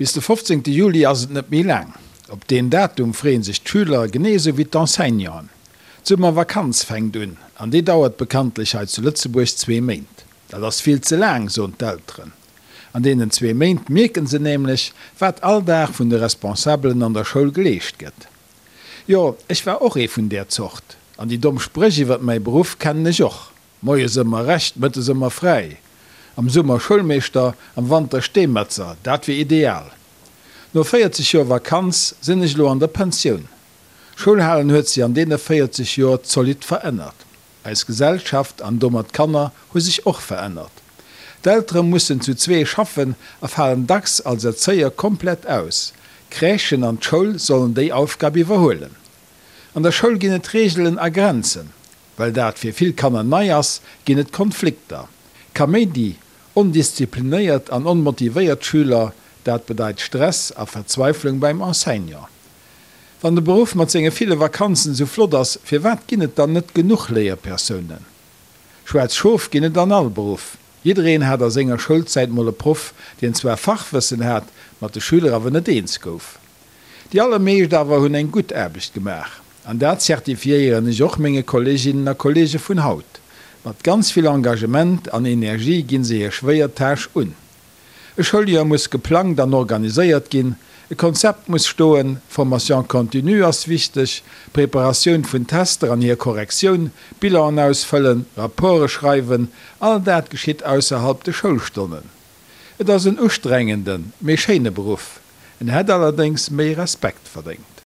Bis de 15 Juli ass et net méi laang. Op deen Datum freeën sech d'Schüler, genee esou wéi d'Enseignanten. D'Summervakanz fänkt un, an déi dauert bekanntlech hei zu Lëtzebuerg zwee Méint. Dat ass vill ze laang, soen d'Elteren. An deenen zwee Méint mierken se nämlech, wat all Dag vun de Responsabelen an der Schoul geleescht gëtt. Jo, ech war och ee vun där Zort. An déi domm Spréch iwwert mäi Beruff kennen ech och. Moies ëmmer recht, mëttes ëmmer fräi. Am Summer Schoulmeeschter, am Wanter Steemetzer, dat wier ideal. No 40 Joer Vakanz sinn ech elo an der Pensioun. Schoulhalen huet sech an deene 40 Joer zolidd verännert. Eis Gesellschaft an domat d'Kanner hu sech och verännert. D'Eltere mussen zu zwee schaffen a falen dacks als Erzéier komplett aus. D'Crèchen an d'Schoul sollen déi Aufgab iwwerhuelen. An der Schoul ginn et Reegelen a Grenzen. Well dat fir vill Kanner nei ass, ginn et Konflikter. Kaméidi, ondisziplinéiert an onmotivéiert Schüler, dat bedeit Stress a Verzweiflung beim Enseignant. Wann de Beruff mat senge ville Vakanzen esou flott ass, firwat ginn et dann net genuch Léierpersounen? Schwaarz Schof ginn et an all Beruff. Jiddereen hat a senger Schoulzäit mol e Proff, deen zwar Fachwëssen hat, mat de Schüler awer net eens gouf. Déi allermeescht awer hunn eng gutt Aarbecht gemaach. An dat zertifiéieren ech och menge Kolleeginnen a Kolleege vun haut. Mat ganz vill Engagement an Energie ginn se hir schwéier Tâche un. E Schouljoer muss geplangt an organiséiert ginn, e Konzept muss stoen, Formation continue ass wichteg, Preparatioun vun Tester an hir Korrektioun, Bilanen ausfëllen, Rapporte schreiwen, all dat geschitt ausserhalb de Schoulstonnen. Et ass en ustrengenden, mee schéine Beruff. En hätt allerdéngs méi Respekt verdéngt.